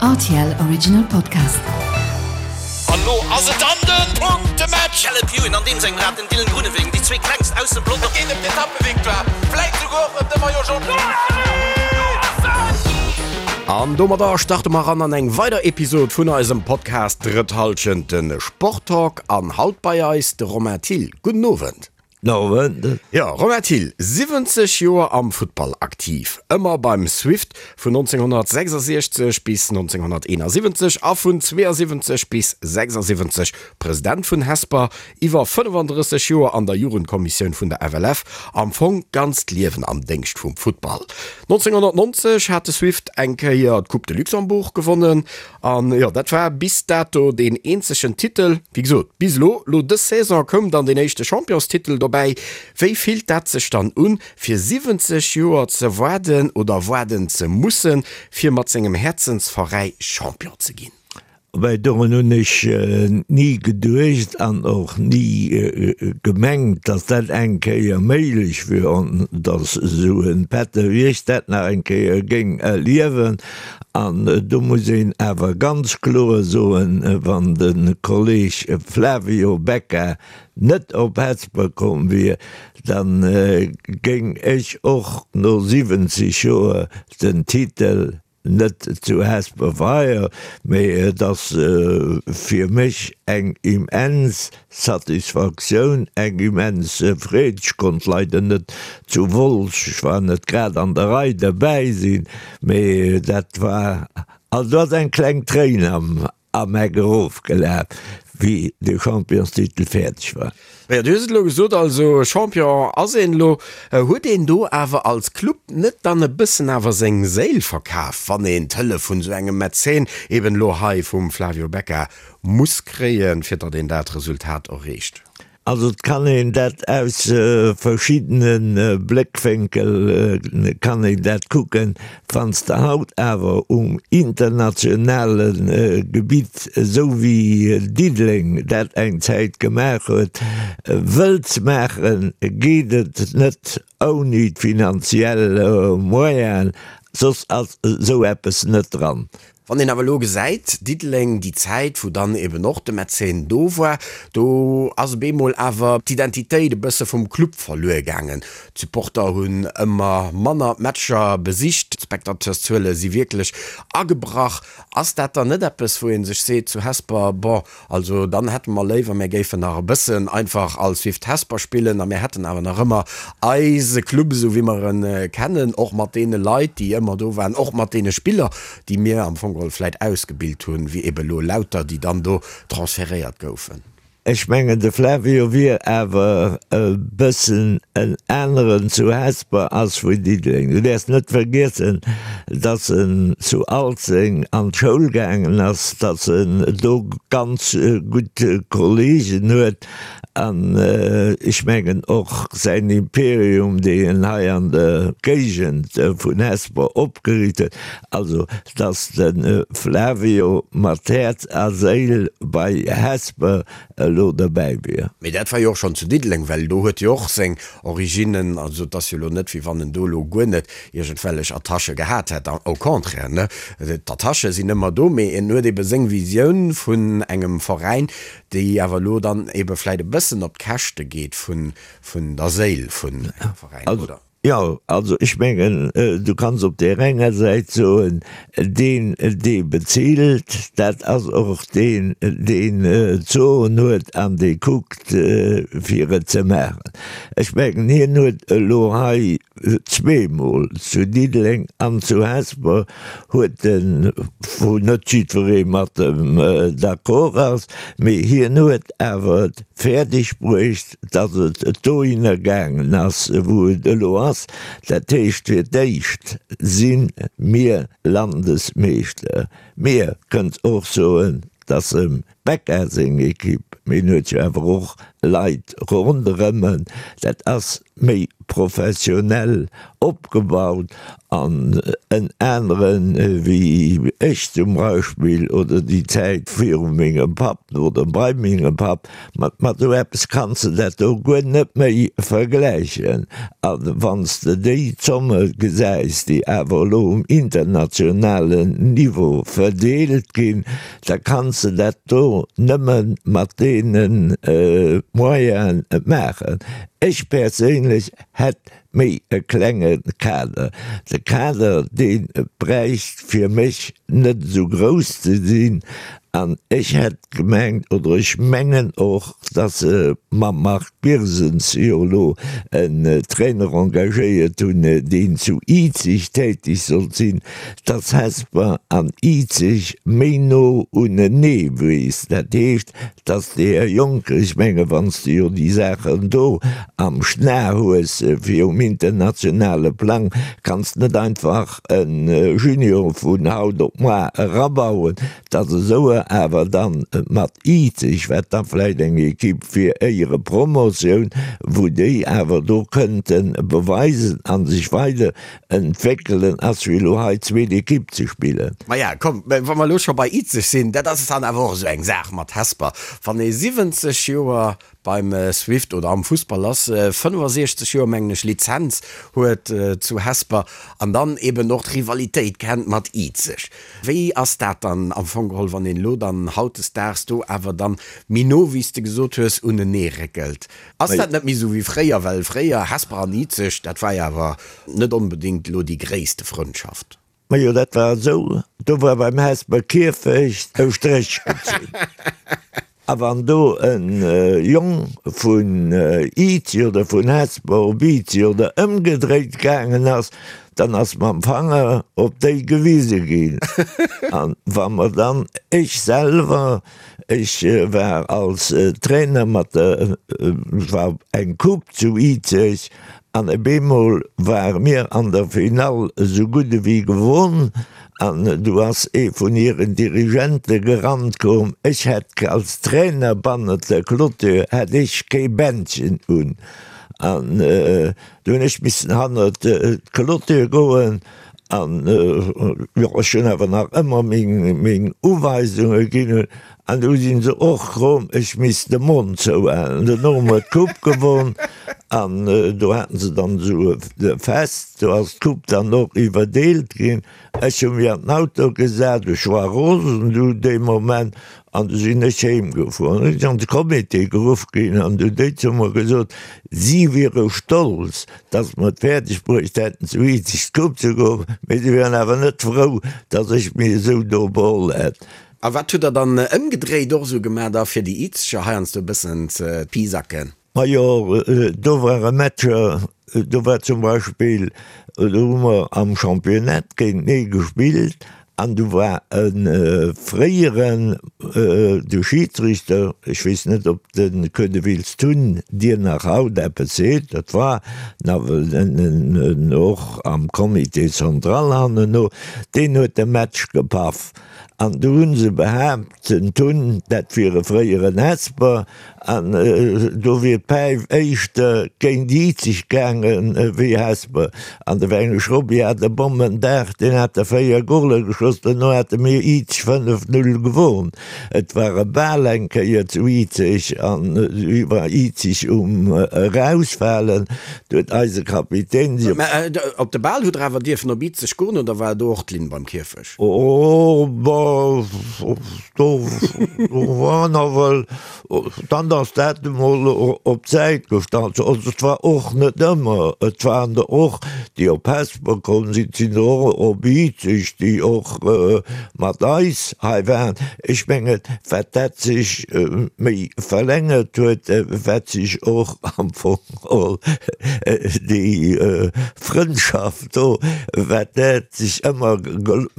Rtl Original Podcast. An lo ass et dann den Punktematch! Caleb Ewan an deem sengem Rad, den Dylan Groenewegen, déi zwee klengst aus dem Pelotong. Et geet ëm d'Etappevictoire, vläit souguer och ëm de Maillot Jaune. An domadder starte mer eran an eng weider Episod vun eisem Podcast Drëtt Hallschent, de Sporttalk. An haut bei eis de Romain Thill. Gudden Owend. Owend. Jo, Romain Thill, 70 Joer am Futtball aktiv, ëmmer beim Swift vun 1966 bis 1971 a vun 72 bis 76 President vun Hesper, iwwer 35 Joer an der Jugendkommissioun vun der FLF, am Fong d'ganzt Liewen am Déngscht vum Futtball. 1990 hat de Swift eng Kéier d'Coupe de Luxembourg gewonnen An jo, dat war bis dato deen eenzegen Titel. Wéi gesot, bis elo. Lo dës Saison koum dann deen éischte Championstitel dobäi. Wéi fillt dat sech dann un, fir 70 Joer ze waarden oder waarden ze mussen, fir mat sengem Häerzensveräi Champion ze ginn? Well dorun hunn ech ni geduecht an och ni gemengt, datt dat eng Kéier méiglech wier an datt esou e Pätter wéi ech dat nach eng Kéier géing erliewen. An do muss een awer ganz kloer soen, wann de Kolleg Flavio Becca net op Hesper komm wier, da géing ech och no 70 Joer den Titel net zu Hesper feieren. Mee et ass fir mech eng immens Satisfaktioun, eng immens Freed. Ech konnt leider net zu Wolz, ech war net grad an der Rei, derbäi sinn, mee dat war, also do ass eng kleng Tréin am am Eck erofgelaf, wéi de Championstitel fäerdeg war. Jo, du hues et elo gesot, also Champion ass een elo. Huet een do awer als Club net dann e bëssen awer seng Séil verkaf, wann een d'Hëllef vun esou engem Mäzen, eben elo hei vum Flavio Becca, muss kréien, fir datt een dat Resultat erreecht? Also et kann een dat aus verschiddene Bléckwénkel kann een dat kucken. Wann s de haut awer um internationale Gebitt, esou wéi Diddeleng dat eng Zäit gemaach huet, wëlls maachen, geet et net ouni d'finanziell Moyenen, soss ass esou eppes net dran. Wann een awer elo gesäit, Diddeleng, déi Zäit, wou dann eben och de Mäzen do war, do ass op eemol awer d'Identitéit e bësse vum Club verluer gaangen. D'Supporter hunn ëmmer manner d'Matcher besicht, d'Spectateurszuele si wierklech agebrach. Ass dat dann net eppes, wou ee sech seet zu Hesper, bon, Also dann hätte mer léiwer, mär géifen nach e bëssen einfach als Swift Hesper spillen a mär hätten awer nach ëmmer eise Club esou wéi mer e kennen, och mat deene Leit, déi ëmmer do waren, och mat deene Spiller, déi mir am Fong geholl vläit ausgebilt hunn, wéi ebe lo Lauter, déi dann do transferéiert goufen. Ech mengen, de Flavio wier awer e bëssen en aneren zu Hesper ass wéi Diddeleng. Du däerfs net vergiessen, dass en zu Alzeng an d'Schoul gaangen ass, dass en do ganz gutt Kollegen huet an ech mengen och säin Imperium, deen en hei an der Géigend vun Hesper opgeriicht huet, also dass de Flavio mat Häerz a Séil bei Hesper elo derbäi wier. Mee dat war jo och schonn zu Diddeleng, well do huet jo och seng Originnen, also et ass jo elo net, wéi wann en do elo guer net iergendwellech Attachë gehat hätt, au contraire, ne, d'Attachë sinn ëmmer do, mee en huet ebe seng Visioun vun engem Veräin, déi awer elo dann ebe vläit e bëssen op d'Käschte geet vun der Séil vun engem Veräin, oder? Jo, also ech mengen, du kanns op där enger Säit soen, deen, dee bezilt, dat ass och deen, deen d'Soen huet an dee kuckt, fir et ze maachen. Ech mengen, hien huet elo hei zweemol, zu Diddeleng an zu Hesper, huet en, wou net jiddweree mat em d'accord ass, mee hien huet awer et fäerdeg bruecht, datt et dohinner gaangen ass, wou et elo ass, dat heescht, fir d'éischt si mir Landesmeeschter. Mir kënnt och soen, datt em. Becca seng Ekipp, mee en huet jo awer och Leit ronderëm en. Dat ass méi professionell opgebaut an en aneren wéi ech zum Beispill oder déi Zäit viru mengem Papp oder bei mengem Papp. Mat mat esou eppes kanns de dat do guer net méi vergläichen. A wann s de déi Zomme gesäis, déi awer elo um internationalen Niveau verdeelt ginn, da kanns de dat do nëmme mat deene Moyene maachen. Ech perséinlech hätt méi e klenge Kader. De Kader, dee bräicht fir mech net esou grouss ze sinn. An ech hätt gemengt, oder ech mengen och, datt se mam Marc Birsens jo elo en Trainer engagéiert hunn, deen zu Izeg tätig sollt sinn, datt Hesper an Izeg méi no unenee wiisst. Dat heescht, Dass de Här Juncker, ech menge wann s de jo déi Saachen do am Schna hues fir um internationale Plang, kanns net einfach e Junior vun haut op moar erabauen, dass esou e awer dann mat Izeg, wat da vläicht eng Equipe fir Éierepromotioun, wou déi awer do kënnte beweisen a sech weider Entwéckelen ass wéi elo hei zweet Ekipp ze spillen. Maja, komm, wa mer elo scho bei Izeg sinn, dat ass dann awer och esou eng Saach mat Hesper. Wann ee 70 Joer beim Swift oder am Fussball ass, 65 Joer, mengen ech, Lizenz huet zu Hesper an dann eben och d'Rivalitéit kennt mat Izeg. Wéi ass dat dann am Fong geholl, wann een elo dann hautdesdaags do awer dann méi no, wéi s de gesot hues, uneneeréckelt? Ass dat net méi esou wéi fréier? Well fréier, Hesper an Izeg, dat war jo awer net onbedéngt elo déi gréisste Frëndschaft. Majo, dat war esou, do war beim Hesper Kierfecht e Stréch gezunn. A wann do e Jong vun Izeg oder vun Hesper op Izeg oder ëmgedréit gaangen ass, dann ass mam Fanger op déi gewise ginn. A wa mer dann, ech selwer, Ech war als Trainer mat der, et war eng Coupe zu Izeg an op eemol ware mir an der Finall esou gutt ewéi gewonn an du ass ee vun hiren Dirigente gerannt komm, ech hätt als Trainer bannert der Clôture hätt ech kee Bändchen un an du hunn ech missen hannert d'Clôture goen An jo, ech hunn awer nach ëmmer meng Uweisunge ginn hunn. An du sinn se och komm, ech misst de Mond zouhalen. Duerno hu mer d'Coupe gewonn an do haten se dann esou e Fest, do ass d'Coupe dann och iwwerdeelt ginn. Ech hu mech an den Auto gesat, ech war rosen du dee Moment An du sinn ech heem gefuer. An du sinn an de Comité geruff ginn an du déi zu mer gesot, si wiere stolz, datt mer et fäerdeg bruecht hätten, zu Izeg d'Coupe ze geholl, mee si wieren awer net frou, datt ech mir esou do beholl hätt. A wat hutt Der dann ëmgedréit och esou gemaach da fir déi Izeger heiansdo e bëssen ze pisacken? Majo, do ware Matcher, do war zum Beispill, do hu mer am Championnat géintenee gespillt an do war e fréieren, de Schiedsrichter, ech weess net, ob de Queudeville Tun dir nach haut eppes seet, dat war nawell en och am Comité central hanneno, deen huet de Match gepaff an do hu se behaapt, den Tun, dat wier e fréieren Hesper, An do wier d'Päif éischter géint Izeg gaangen ewéi Hesper. An de Wengesch Robby hat e Bommendag, deen hat der 4 Goler geschoss, duerno hate mir Izeg 5, 0 gewonn. Et war e Bal eng Kéier zu Izeg an du war Izeg um erausfalen, du huet eise Kapitän si. Mä op de Bal hutt der awer dierfen op Izeg goen oder war do och d'Linn beim Kierfech? Oh, bah, do war nawell, dann ass dat emol op d'Säit gestallt. Also et war och net ëmmer, et waren der och, déi op Hesper komm sinn, et sinn der och op Izeg, déi och mat eis hei waren. Ech mengen, wat dat sech méi verlängert huet, wat sech och am Fong geholl déi Frëndschaft, Do, wat dat sech ëmmer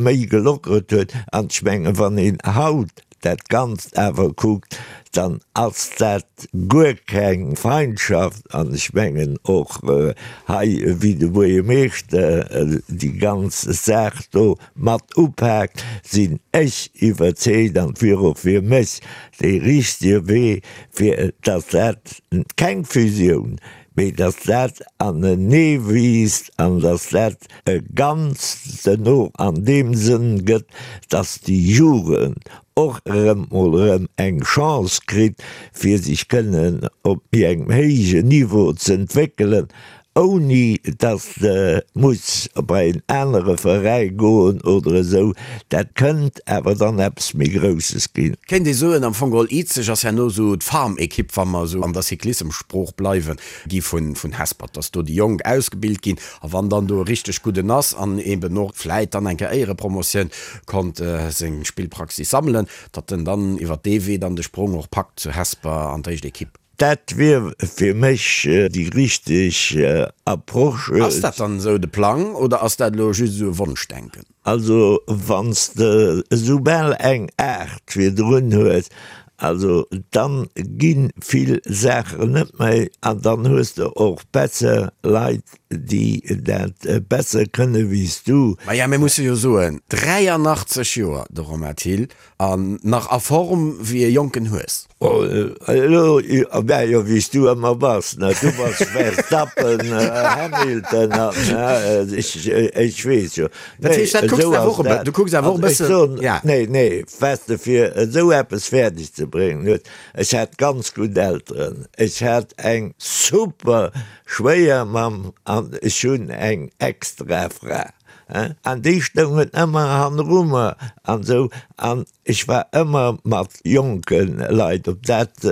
méi gelockert huet. An ech mengen, wann een haut. dat Ganzt awer kuckt, dann ass dat guer keng Feindschaft. An ech mengen och hei, wéi de Buergermeeschter déi ganz Saach do mat upaakt, sinn ech iwwerzeegt, an et wier och fir mech dee richtege Wee, fir datt dat keng Fusioun, mee datt dat anenee wiisst an datt dat e Ganzt duerno an deem Sënn gëtt, datt déi Jugend och erëm mol erëm eng Chance kritt, fir sech kënnen op méi engem héijen Niveau z'entwéckelen, ouni datt se muss bei en anere Veräi goen oder esou. Dat kënnt awer dann eppes méi Grousses ginn. Kéint ee soen, am Fong geholl, Izeg ass herno esou d'Farm-Ekipp, wa mer esou an der Cyclissem-Sprooch bleiwen, gi vun Hespert, datt do déi Jonk ausgebilt ginn a wann dann do e richteg gudden ass an eben och vläit dann eng Kéier Éierepromotioun konnt seng Spillpraxis sammelen, datt en dann iwwer dee Wee dann de Sprong och packt zu Hesper an d'éischt Ekipp. Dat wier fir mech déi richteg Approche. Ass dat dann esou de Plang oder ass dat elo just esou e Wonschdenken? Also wann s de esoubal eng 8 virdrun hues, also dann gi vill Saachen net méi an dann hues de och besser Leit, déi dat besser kënne wéi s du. Maja, mir musse jo soen, 83 Joer, de Romain Thill, An nach a Form wéi e jonken Hues. Elo, mä jo, wéi s du ëmmer bass, ne? Du bass Verstappen, Hamilton an ech, ech weess jo. Dat heescht, dat kucks de awer och e bë, du kucks awer och e bëssen, ja. Nee, nee, weess de, fir esou eppes fäerdeg ze bréngen, huet, ech hat ganz gutt Elteren, ech hat eng super Schwéiermamm an ech hunn eng extra Fra. An déi stoungen ëmmer hanneru mer an esou. An ech war ëmmer mat jonke Leit, ob dat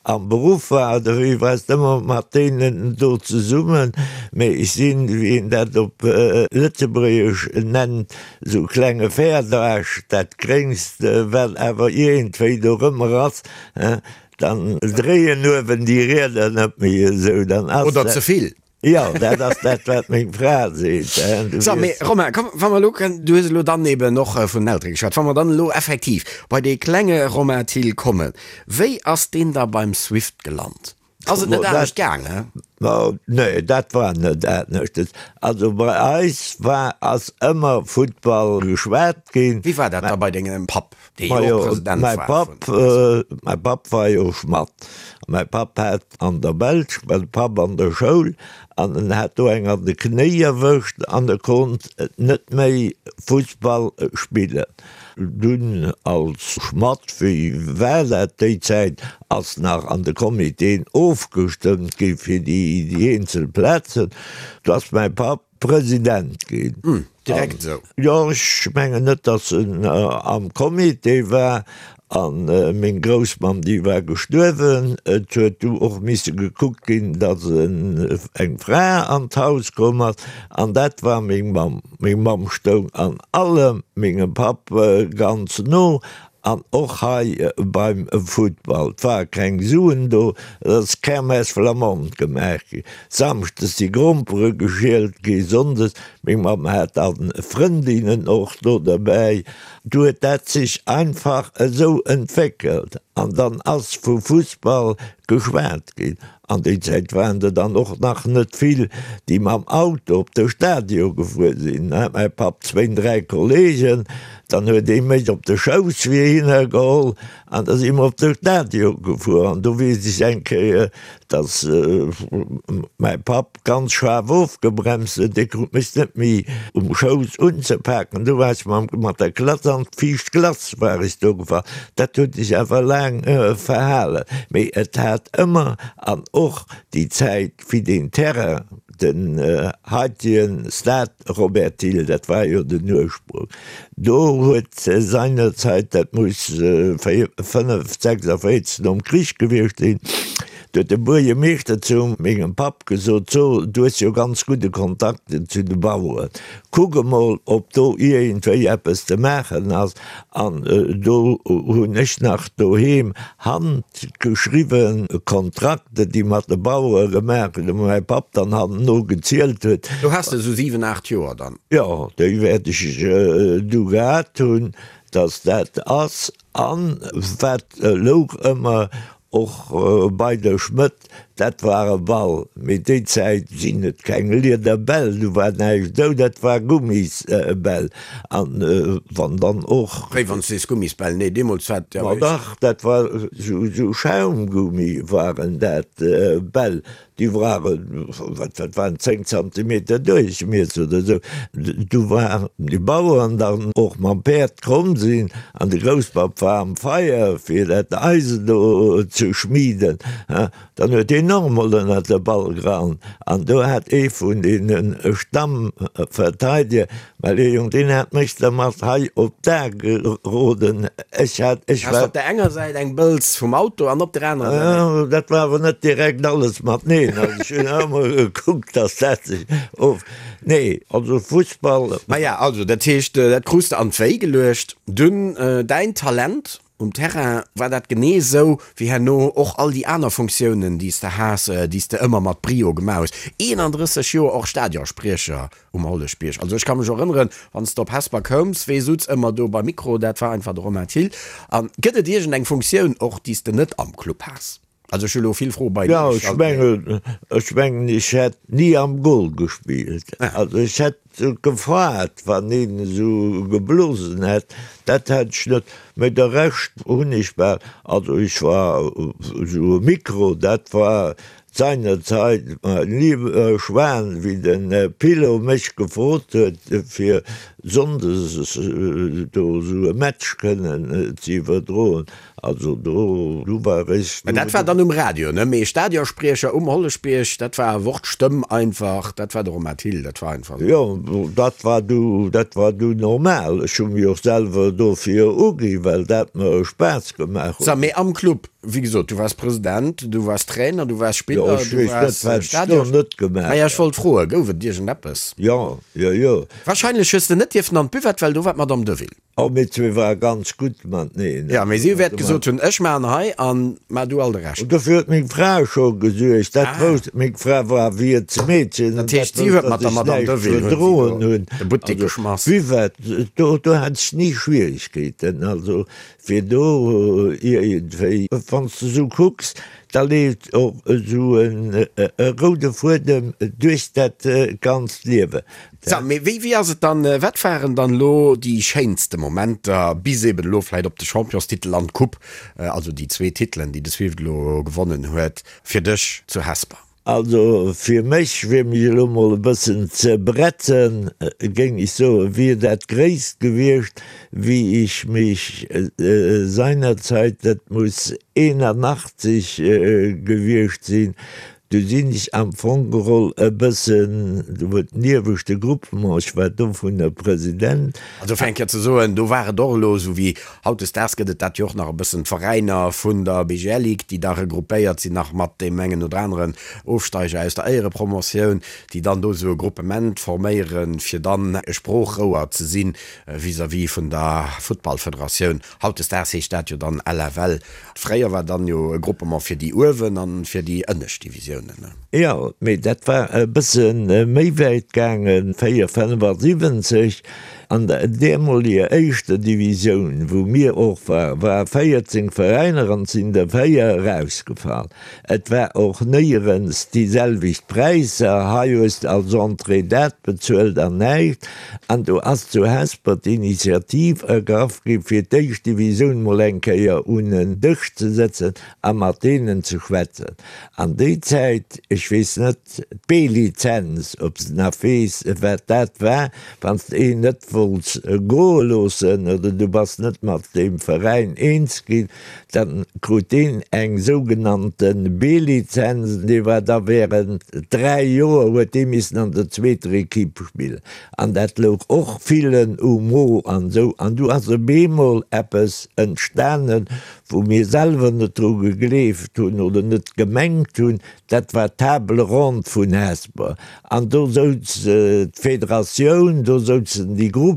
am Beruff war oder wéi, war s ëmmer mat deenen do zesummen. Mee ech sinn, wéi een dat op Lëtzebuergesch nennt, esou klenge Fäerdaarsch, dat Gréngst, wat awer iergendwéi dorëmmer ass, dann dréien uewen déi Rieder net méi esou, dann ass dat. Oder ze vill. Jo, dat ass dat, wat meng Fra seet. So, mee Romain, komm, wa mer elo kënnen, du hues elo dann eben och vun den Eltere geschwat, wa mer dann elo effektiv bei dee klenge Romain Thill kommen, wéi ass deen da beim Swift gelant? Ass et net anescht gaangen? Nee, dat war net anescht. Also bei eis war, ass ëmmer Futtball geschwat ginn. Wéi war dat da bei dengem Papp, dee jo och President war vun. Mäi Papp war jo Schmadd. Mäi Papp hat an der Belsch, war de Papp an der Schoul an en hat do eng an de Knéi erwëscht an e konnt net méi Fussball spillen. Dunn als Schmadd, wéi war dat déi Zäit, ass nach an de Comitéen ofgestëmmt gi fir déi eenzel Plazen. Do ass mäi Papp President ginn. Hm, direkt esou? Jo, ech mengen net, datt en am Comité war. A meng Groussmamm, déi war gestuerwen. Et huet du och misse gekuckt ginn, datt eng Fra an d'Haus komm ass. An dat war meng Mamm. Meng Mamm stoung an allem mengem Papp ganz no. An och hei beim Futtball, 't ware keng Suen do, et ass Kermesse flamande gemaach gi. Samschdes si Grompere geschielt gi, sonndes, meng Mamm hat dann Frëndinnen och do derbäi, du huet dat sech einfach esou entwéckelt an dann ass vu Fussball geschwat ginn. An déi Zäit waren der dann och nach net vill, déi mam Auto op de Stadion gefuer sinn. Mäi Papp zwéin, dräi Kollegen, dann huet ee mech op de Schouss fir hinner geholl an da si mer op de Stadion gefuer. An do weess ech eng Kéier, datt mäi Papp ganz schaarf ofgebremst huet, dee krut mech net méi um Schouss unzepaken. Du war ech mat der Klass an d'viischt Glace war ech do gefall. Dat huet sech awer laang verhalen, mee et hat ëmmer, an och déi Zäit wéi deen Terrain, den heitegen Stade Robert Thill, dat war jo den Ursprung, do huet seinerzeit, dat muss 5, 46 nom Krich gewiescht sinn, Do huet de Buergermeeschter zu mengem Papp gesot, So, du hues jo ganz gudde Kontakt zu de Baueren, kuck emol, ob do iergendwéi eppes ze maachen ass. An do hunn ech nach doheem handgeschriwwe Kontrakte, déi mat de Bauere gemaach ginn, wou mäi Papp dann hanneno gezielt huet. Do has de esou 7, 8 Joer dann? Jo, déi wäert ech du gehat hunn, datt dat ass. An wat louch ëmmer och bei de Schmëdd, dat war e Ball. Mee déi Zäit sinn et keng Liederbäll, du war näischt esou, dat war Gummisbäll. An wann dann och. Wéi wann s de sees Gummisbäll? Nee, deemools war et jo. Ma dach, dat war esou Schaumgummi waren dat Bäll. Déi waren, wat dat waren, 10 Zantimeter Duerchmiesser oder esou. Du waren déi Baueren dann och mam Päerd komm sinn an de Grousspapp war am Feier fir dat Eisen do ze schmieden. Dann huet deen och emol ënnert de Ball gerannt an do hat ee vun deene Stammverteidiger Well dee Jong, deen hat mech da mat hei op d'A geroden. Ech hat, ech war. Hast op der enger Säit eng Bëlz vum Auto an op der anerer Säit eng. Jo, dat war awer net direkt alles mateneen. Also ech hunn ëmmer gekuckt, dass dat sech of. Nee, also Fussball. Maja, also dat heescht, dat krus de an d'Wéi geluecht. Dunn däin Talent um Terrain, war dat genee esou wéi herno och all déi aner Funktiounen, déi s de has, déi s de ëmmer mat Brio gemaach hues? 31 Joer och Stadionspriecher Um Holleschbierg. Also ech ka mech erënneren, wann s de op Hesper koums, wee sutz ëmmer do beim Mikro, dat war einfach de Romain Thill. A gëtt et iergend eng Funktioun och, déi s de net am Club has? Also ech hu lo vill Froe beienee Jo, ech mengen, ech mengen ech hätt ni am Goal gespillt. Also ech hätt gefaart, wann een esou geblosen hätt, dat hätt ech net. Mä de Rescht hunn ech bal, also ech war esou e Mikro, dat war Seinerzeit, mein lieber Schwan, wéi de Pilo mech gefrot huet, fir sonndes do esou e Match kënnen ze iwwerdroen, also do, du war ech. Mä dat war dann um Radio, ne? Mee Stadionspriecher um Holleschbierg, dat war Wort, Stëmm einfach, dat war de Romain Thill, dat war einfach esou. Jo, dat war du, dat war du normal. Ech hu mech och selwer dofir ugi, well dat mer Spaass gemaach huet. Sou, mee am Club, Wéi gesot, du waars President, du waars Trainer, du waars Spiller, Jo, ech du weess net, waars wat ech do Stadion. net gemaach Maja, ech wollt froen, gouf et iergendeppes? Jo, jo, jo. Wahrscheinlech hues de net dierfen an d'Buvette, well do war d'Madame Deville. Oh, mir zwee ware ganz gutt mateneen. Jo, mee si wäert gesot hunn, ech maachen hei an maach du all de Rescht. Dofir huet meng Fra scho gesuergt. Dat wousst, meng Fra war Wiertsmeedchen Dat heescht, si huet mat der Madame Deville verdroen hunn si do de Buttek geschmass. Buvette, do, do hat ech ni Schwierigkeeten. Also, Fir do iergendwéi, wann s de esou kucks, da leeft och esou e roude Fuedem duerch dat ganzt Liewen. Sou, mee wéi, wéi ass et dann, wat waren dann elo déi schéinste Momenter, bis eben elo vläicht op de Championstitel an d'Coupe, also déi zwee Titelen, déi de Swift elo gewonnen huet, fir dech zu Hesper? Also fir mech, fir mech elo mol e bëssen ze bretzen, géing ech soen, wier dat Gréisst gewiescht, wéi ech mech seinerzeit, dat muss 81 gewiescht sinn, du sinn ech am Fong geholl e bëssen, do huet den ieweschte Groupement, ech war dovunner President, Also fir eng Kéier ze soen, do war et och elo esou wéi Hautdesdaags gëtt et dat jo och nach e bëssen, d'Veräiner vun der BGL Ligue, déi da regruppéiert sinn nach mat deem engen oder aneren Ofsteiger aus der Éierepromotioun, déi dann do esou e Gruppement forméieren, fir dann e Sproochrouer ze si vis-à-vis vun der Futtballfederatioun. Hautdesdaags heescht dat jo dann LFL. Fréier war dann jo e Gruppement fir déi uewen an fir déi ënnescht Divisiounen. Jo, mee dat war e bësse méi wäit gaangen, 4, 75 An der deemoliger éischter Divisioun, wou mir och waren, ware 14 Veräiner an et sinn der 4 erausgefall. Et war och néierens déi selwecht Präisser, hei hues de als Entrée dat bezuelt an näischt. An do ass zu Hesper d'Initiativ ergraff gi fir d'éischt Divisioun mol eng Kéier un en Dësch ze sëtzen a mat deenen ze schwätzen. An déi Zäit, ech weess net, d'B-Lizenz, ob s de nach weess, wat dat war, wann s de een net wollts goe loossen oder du bass net mat deem Veräin eens ginn, da krut deen eng sougenannte B-Lizenz an dee war da während 3 Joer huet dee missen an der zweeter Equipe spillen. An dat louch och villen um Mo an esou. An du ass op eemol eppes entstanen, wou mir selwer net dru gegleeft hunn oder net gemengt hunn, dat war d'Table ronde vun Hesper. An do souz d'Federatioun, do souzen déi Groupementen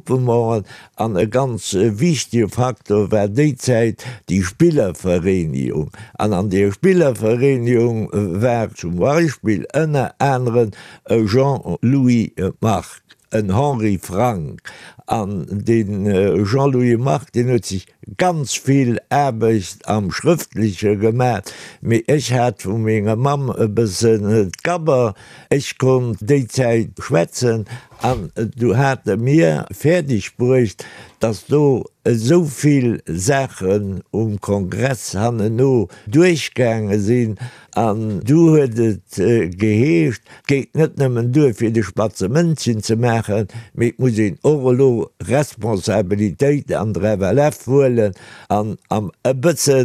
an e ganz wichtege Faktor war déi Zäit déi Spillervereenigung. An an deer Spillervereenigung war zum Beispill ënner aneren e Jean-Louis Margue, en Henri Frank. An de Jean-Louis Margue, deen huet sech ganz vill Aarbecht am Schrëftleche gemaach, mee ech hat vu menger Mamm e bëssen d'Gabber, ech konnt déi Zäit schwätzen an du hate mir fäerdeg bruecht, dass do esou vill Saachen um Kongress hanneno duerchgaange sinn An du huet et geheescht, et geet net nëmmen duer fir de spatze Mëndchen ze maachen, mee et muss een och elo Responsabilitéit an der FLF huelen an am e bësse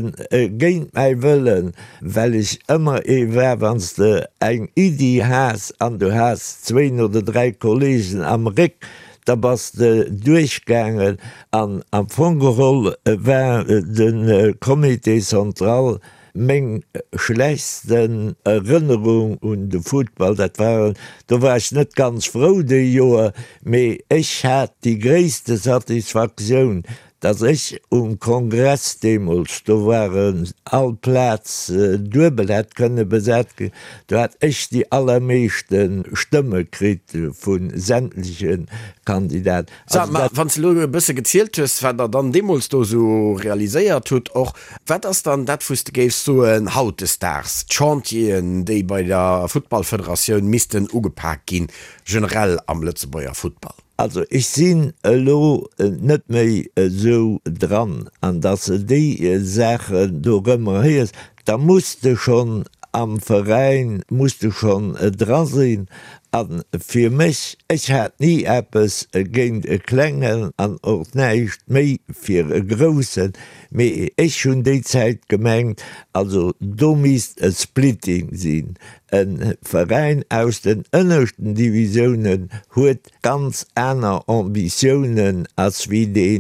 géint mäi Wëllen, well ech ëmmer ee war, wann s de eng Iddi has an du has zwéin oder dräi Kollegen am Réck, da bass de duerchgaangen. An am Fong geholl war de Comité central Meng schlechtsten Erënnerung un de Futtball, dat waren, do war ech net ganz frou déi Joer, mee ech hat déi gréisste Satisfaktioun, datt ech um Kongress deemools, do waren all Plaz duebel hätt kënne besat ginn, do hat ech déi allermeeschte Stëmme kritt vu sämtleche Kandidaten. Sag, ma wann s de elo e bësse gezielt hues, wat Der dann deemools do esou realiséiert hutt och, wat ass dann dat, wou s de géifs soen, hautdesdaags, d'Chantieren, déi bei der Futtballfederatioun missten ugepak ginn, generell am Lëtzebuerger Futtball? Also ech sinn elo net méi esou dran, an datt s de déi Saachen do erëm héiers, da muss de schonn am Veräin, muss de schonn dra sinn. A fir mech, ech hat ni eppes géint e Klengen an och näischt méi fir e Groussen, mee ech hunn déi Zäit gemengt, also do misst e Splitting sinn. E Veräin aus den ënneschten Divisiounen huet ganz aner Ambitiounen ass wéi dee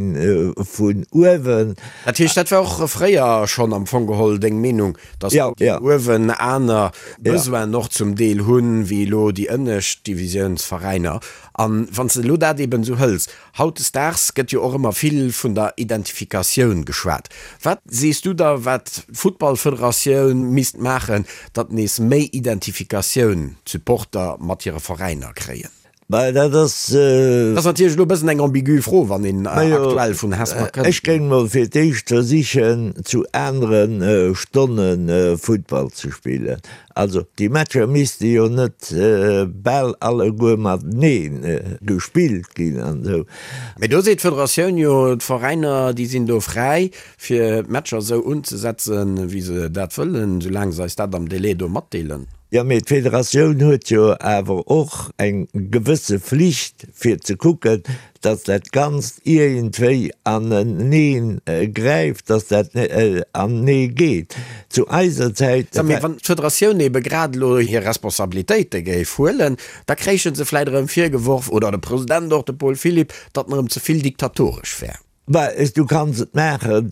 vun uewen. Dat heescht, dat war och fréier schonn am Fong geholl deng Meenung, datt déi uewen aner Besoinen och zum Deel hunn, wéi elo déi ënnescht Divisiounsveräiner. A wann s de elo dat eeben esou hëls, hautdesdaags gëtt jo och ëmmer vill vun der Identifikatioun geschwat. Wat sees du da, wat d'Futtballfederatioun misst maachen, datt nees méi Identifikatioun d'Supporter mat hire Veräiner kréien? Bah, dat ass. Dat ass natierlech elo e bëssen eng ambigu Fro, wann een aktuell vun Hesper kënnt. Ech géing mol fir d'éischt versichen, zu anere Stonne Futtball ze spillen. Also, déi Matcher misste jo net bal alleguer matenee gespillt ginn an esou. Mee do seet d'Federatioun jo, d'Veräiner, déi sinn do fräi, fir d'Matcher esou unzesetzen, wéi se dat wëllen, soulaang se eis dat am Délai do matdeelen. Jo, mee d'Federatioun huet jo awer och eng gewësse Flicht, fir ze kucken, datt dat Ganzt iergendwéi anenee gräift, datt dat anenee geet. Zu eiser Zäit. Sag, mee wann d'Federatioun ebe grad elo hir Responsabilitéite géif huelen, da kréiche se vläicht erëm virgeworf, oder de President och, de Paul Philipp, datt en erëm ze vill diktatoresch wär. Bah, du kanns et maachen,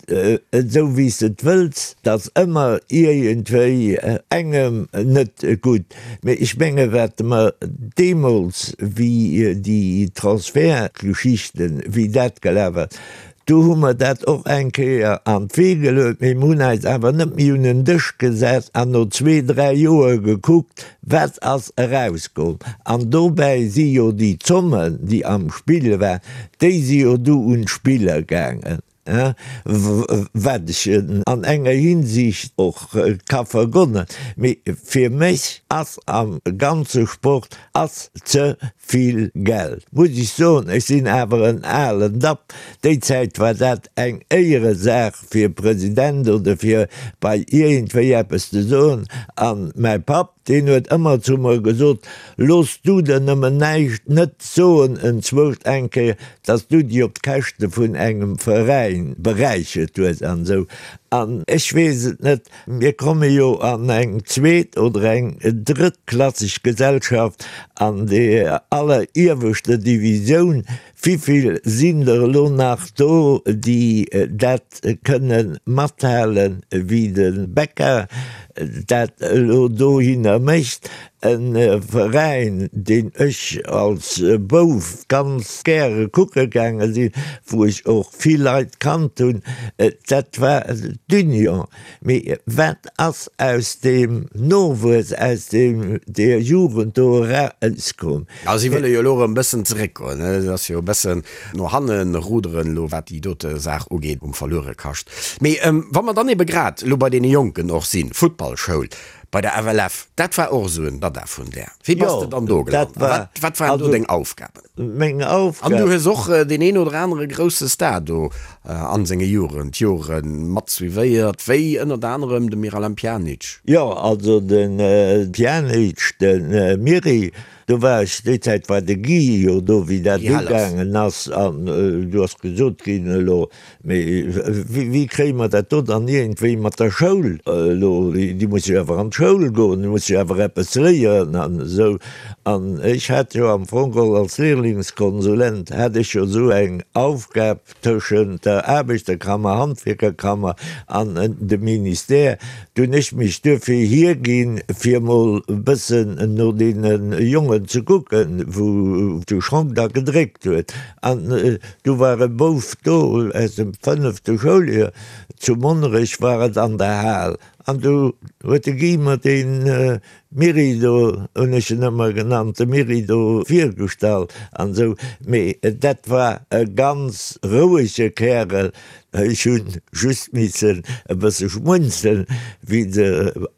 esou wéi s de et wëlls, 't ass ëmmer iergendwéi engem net gutt. Mee ech menge wat mer deemools, wéi déi Transfertgeschichten, wéi dat gelaf ass, do hu mer dat och eng Kéier an d'Wee geluet, mee mer hunn eis awer net méi un en Dësch gesat an no zwee, dräi Joer gekuckt, Wat ass erauskomm? An dobäi si jo déi Zommen, déi am Spill waren, déi si jo du un d'Spiller gaangen, wat ech an enger Hinsicht och ka vergonnen. Mee fir mech ass am ganze Sport ass ze vill Geld, muss ech soen. Ech sinn awer en alen Dapp. Déi Zäit war dat eng Éieresaach fir President oder fir bei iergendwéi eppes ze soen. An mäi Papp, deen huet ëmmer zu mer gesot, Looss du der nëmmen näischt net soen enzwousch eng Kéier, dass du déi op d'Käschte vun engem Veräin beräichert hues an esou. An ech weess et net, mir komme jo an eng zweet oder eng drëttklasseg Gesellschaft an der allerieweschter Divisioun, Wivill sinn der elo nach do, déi dat kënne mathalen, wéi de Becca dat elo dohinner mécht? E Veräin, deen ech als Bouf ganz gäre kucke gaange sinn, wou ech och vill Leit kannt hunn, dat war d'Union. Mee wat ass aus deem Nowuess, aus deem, deer Jugend do erauskomm? A si wëlle jo elo erëm e bëssen zeréckgoen. Et ass jo e bëssen no hanne ruderen elo, wat déi dote Saach ugeet, um Verluerekascht. Mee wa mer dann ebe grad elo bei deene Jonken och sinn, Futtballschoul, Bei der FLF, dat war och esou en Dada vun där. Wéi bass de dann do gelant a wat waren do deng Aufgaben? Meng Aufgaben. An du hues och deen een oder anere grousse Star do an senge Jugendjore mat suivéiert, wéi ënnert anerem de Miralem Pjanic. Jo, also de Pjanic, de Miri, do war ech, déi Zäit war de Guy jo do, wéi dat ugaangen ass, an du ass gesot ginn, elo Mee wéi kréie mer dat do dann iergendwéi mat der Schoul elo? Déi musse jo awer an d'Schoul goen, déi musse jo awer eppes léieren an esou. An ech hat jo am Fong geholl als Lehrlingskonsulent hat ech jo esou eng Aufgab tëschent der Aarbechterkammer, Handwierkerkammer an dem Ministère. Do hunn ech mech duerfir hierginn, fir emol e bëssen no deene Jongen ze kucken, wou de Schong da gedréckt huet. An Du war e Bouf do aus dem fënnefte Schouljoer, zu Monnerech war et an der Hal, an du huet de Guy mer dee Miri do, hunn ech en ëmmer genannt, de Miri do virgestallt an esou. Mee dat war e ganz rouege Kärel, ech hu just missen e bësse schmunzeln, wéi se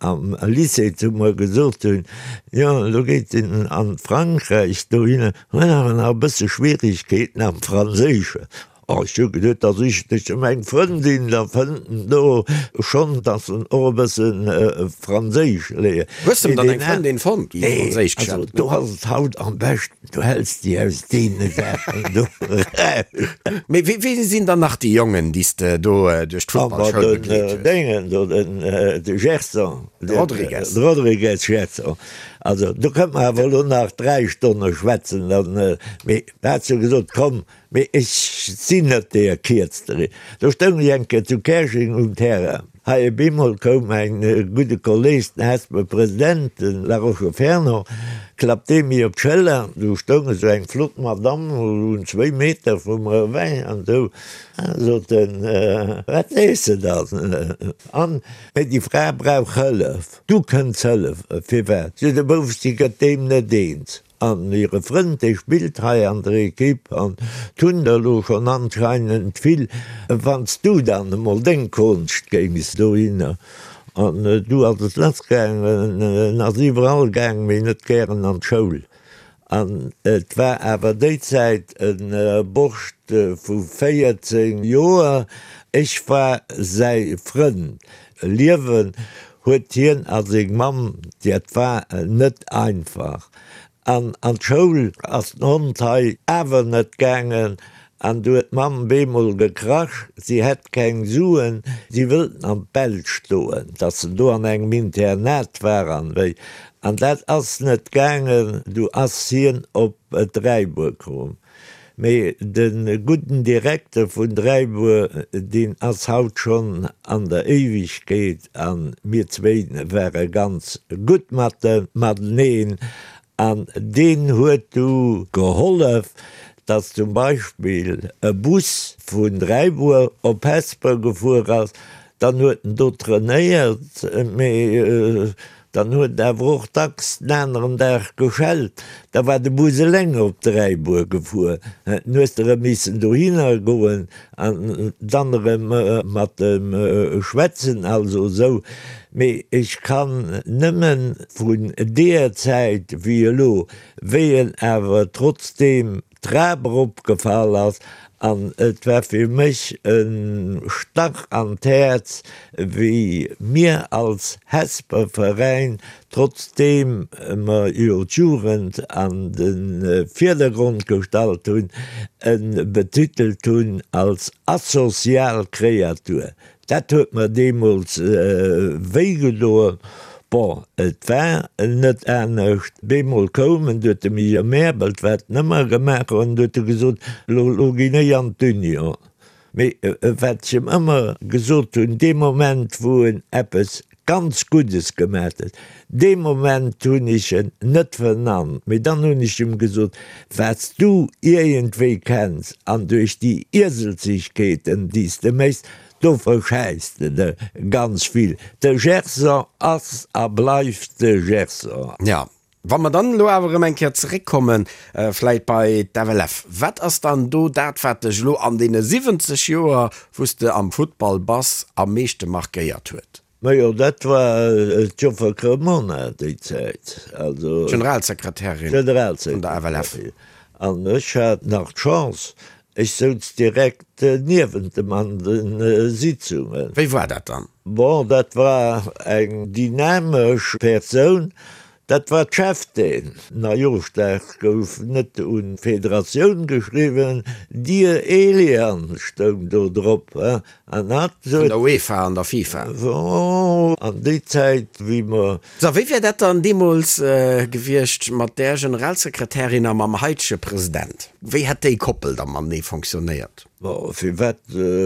am Lycée zu mer gesot hunn, jo elo geet en an Frankräich dohinner. Hunn awer nach e bësse Schwierigkeeten am Franséischen. Oh, ech hu geduet, da sichen ech em eng Frëndin, da fënnt en do schonn, dass en och e bësse Franséisch léiert. Hues de em dann eng Frëndin fonnt, déi Franséisch Nee, also do ass et haut am beschten, du häls déi aus deene Saachen do eraus. Mee wéi sinn dann nach déi Jongen, déi s de do duerch d'Futtballschoul begleet hues? Den Déngen do, den de Gerson. De Rodrigues. De Rodrigues Gerson. Also do kënnt mer awer elo nach 3 Stonne schwätzen, dann, mee da hat se gesot, komm, mee ech sinn net deer Kierztere. Do stoung ech eng Kéier zu Käerjeng um Terrain. Hei op eemol koum mäin gudde Kolleeg, den Hesper President, de Laroche Fernand, klappt dee mir op d'Schëller. Do stoung esou eng flott Madamm un zwéi Meter vu mer ewech an esou, sot en, wat sees de dann? An, mee déi Fra brauch Hëllef. Du kënns hëllef. Firwat? Sou de Bouf, si gëtt deem net eens. An hire Frënd, dee spillt hei an der Equipe an 't hunn der elo schonn anscheinend vill. Wann s du dann emol deng Konscht géings dohinner. An du ass et lassgaangen. En ass iwwerall gaang, mee net gären an d'Schoul. An et war awer déi Zäit e Borscht vu 14 Joer. Ech war säi Frënd. Liewen huet hien a seng Mamm, dat war net einfach. An an d'Schoul ass den Hond hei awer net gaangen. An du huet d'Mamm bemol gekrasch, si hätt keng Suen, si wëllt en an d'Belsch doen, dass en do an engem Internat war an wéi. An dat ass net gaangen, du ass hien op Dräibuer komm. Mee de gudden Direkter vun Dräibuer, deen ass haut schonn an der Éiwegkeet, a mir zwéin ware ganz gutt mateneen, An deen huet du gehollef, dass zum Beispill e Bus vun Dräibuer op Hesper gefuer ass. Dann huet en do trainéiert, mee dann huet en awer och dacks den aneren Dag geschellt. Da war de Bus eleng op Dräibuer gefuer. Dann hues de erëm missen dohinner goen An dann erëm mat em schwätzen, also esou. Mee ech kann nëmmen vun deeër Zäit wéi elo, wéi en awer trotzdeem d'Trap eropgefall ass, an et war fir mech e Stach an d'Häerz, wéi mir als Hesper Veräin Trotzdeem mer jo d'Jugend an de Virdergrond gestallt hunn, e betitelt hunn als asozial Kreatur. Dat huet mer deemools wéi gedoen. Bon, et war net anescht. Bemol koum en, du huet de Mier Mäerbelt, wat en ëmmer gemaach huet, an du huet e gesot, Lo, lo ginn ech an d'Union. Mee wat ech em ëmmer gesot hunn, dee Moment wou en eppes. Ganz Guddes gemat huet. Dee Moment hunn ech en net vernannt, mee dann hunn ech em gesot, Wat s du iergendwéi kenns an duerch déi Ieselzegkeeten, déi s de méchs, do verschäiss de der ganz vill. De Gerson ass a bleift de Gerson. Jo, wa mer dann elo awer erëm eng Kéier zeréckkommen, vläit bei d'FLF, wat ass dann do dat, wat dech elo an deene 70 Joer, wou s de am Futtball bass, am meeschte markéiert huet? Majo, dat war d'Joffer Cremona déi Zäit, also. D'Generalsekretärin vun der FLF. An ech hat nach d'Chance, ech souz direkt niewent em an de Sitzungen. Wéi war dat dann? Bon, dat war eng dynamesch Persoun, Dat war d'Cheftaine. Neijooschdag gouf net un d'Federatioun geschriwwen, Dear Elian stoung do drop. An hat Vun der UEFA an der FIFA. An déi Zäit, wéi mer. So, wéi wär dat dann deemools gewiescht mat där Generalsekretärin a mam haitege President? Wéi hätt déi Koppel da matenee fonctionnéiert? Bon, firwat,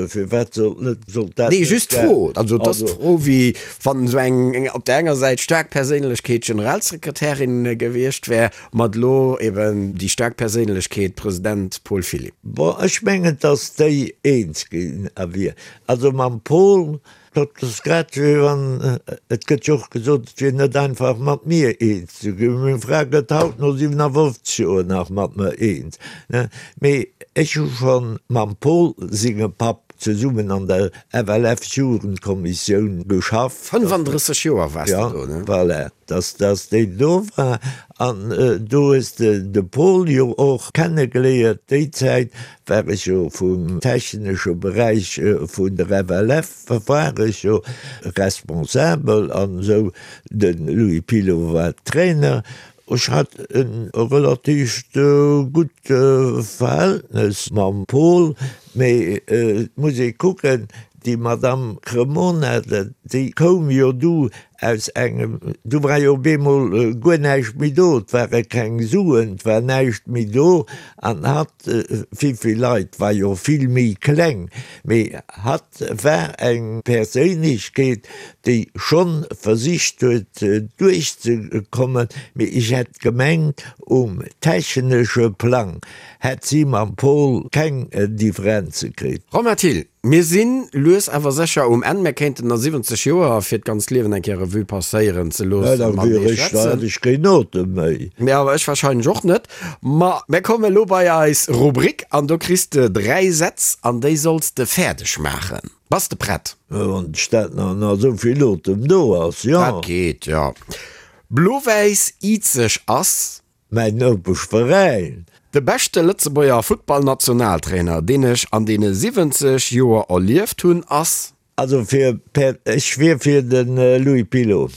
firwat sollt net, sollt dat Nee, net just d'Fro. Also et ass d'Fro, wéi wann esou eng op där enger Säit staark Perséinlechkeet Generalsekretärin gewiescht wär, mat elo eben déi staark Perséinlechkeet President Paul Philipp. Bon, ech mengen, datt déi eens ginn a wier. Also mam Paul, Dat ass grad wéi wann, et gëtt jo och gesot, et wier net einfach mat mir eens ze ginn. Meng Fra gëtt haut no 57 Joer nach mat mer eens. Mee ech hu scho mam Paul sengem Papp zesummen an der FLF-Jugendkommissioun geschafft. 35 Joer waars de do, ne? Ja, voilà, dass, dass déi do war. An do hues de de Paul jo och kennegeléiert. Déi Zäit war ech jo vum technesche Beräich vun der FLF war ech jo responsabel an esou. De Louis Pilot war Trainer. Ech hat e relatiivt gutt Verhältnes mam Paul, mee et muss ee kucken, déi Madamm Cremona, déi koum jo du Aus engem, du war jo op eemol guer näischt méi do, et ware keng Suen, et war näischt méi do an hatt, vill Leit, war jo vill méi kleng, mee hatt war eng Perséinlechkeet, déi schonn versicht huet duerchzekommen, mee ech hätt gemengt, um technesche Plang hätt si mam Paul keng Differenze kritt. Romain Thill, Mir si lues awer sécher um Enn. Mir kéinten nach 70 Joer fir d'ganzt Liewen eng Kéier Revue passéieren ze loossen. Da wier ech, da hätt ech keen Otem méi. Mee awer ech wahrscheinlech och net. Ma mir kommen elo bei eis Rubrik an do kriss de 3 Sätz an déi solls de fäerdeg maachen. Bass de prett? Wann d'Stad nach nach esou vill Otem do ass, jo. Dat geet, jo. Blo-Wäiss Izeg ass. Mäin Nopeschveräin. De beschte Lëtzebuerger Futtballnationaltrainer, deen ech an deene 70 Joer erlieft hunn, ass. Also fir per, ech wier fir de Louis Pilot.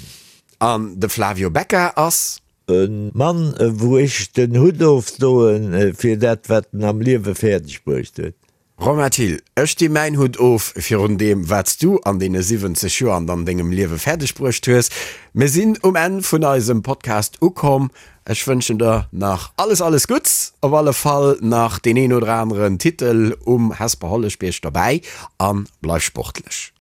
An de Flavio Becca ass. E Mann, wou ech den Hutt ofdoen fir dat, wat en am Liewe fäerdeg bruecht huet. Romain Thill, Ech di mäin Hutt of virun deem, wat s du an deene 70 Joer an an dengem Liewe fäerdeg bruecht hues. Mir sinn um Enn vun eisem Podcast ukomm. Ech wënschen der nach alles, alles Gutts, op alle Fall nach deen een oder aneren Titel um Hesper Holleschbierg dobäi a bleif sportlech.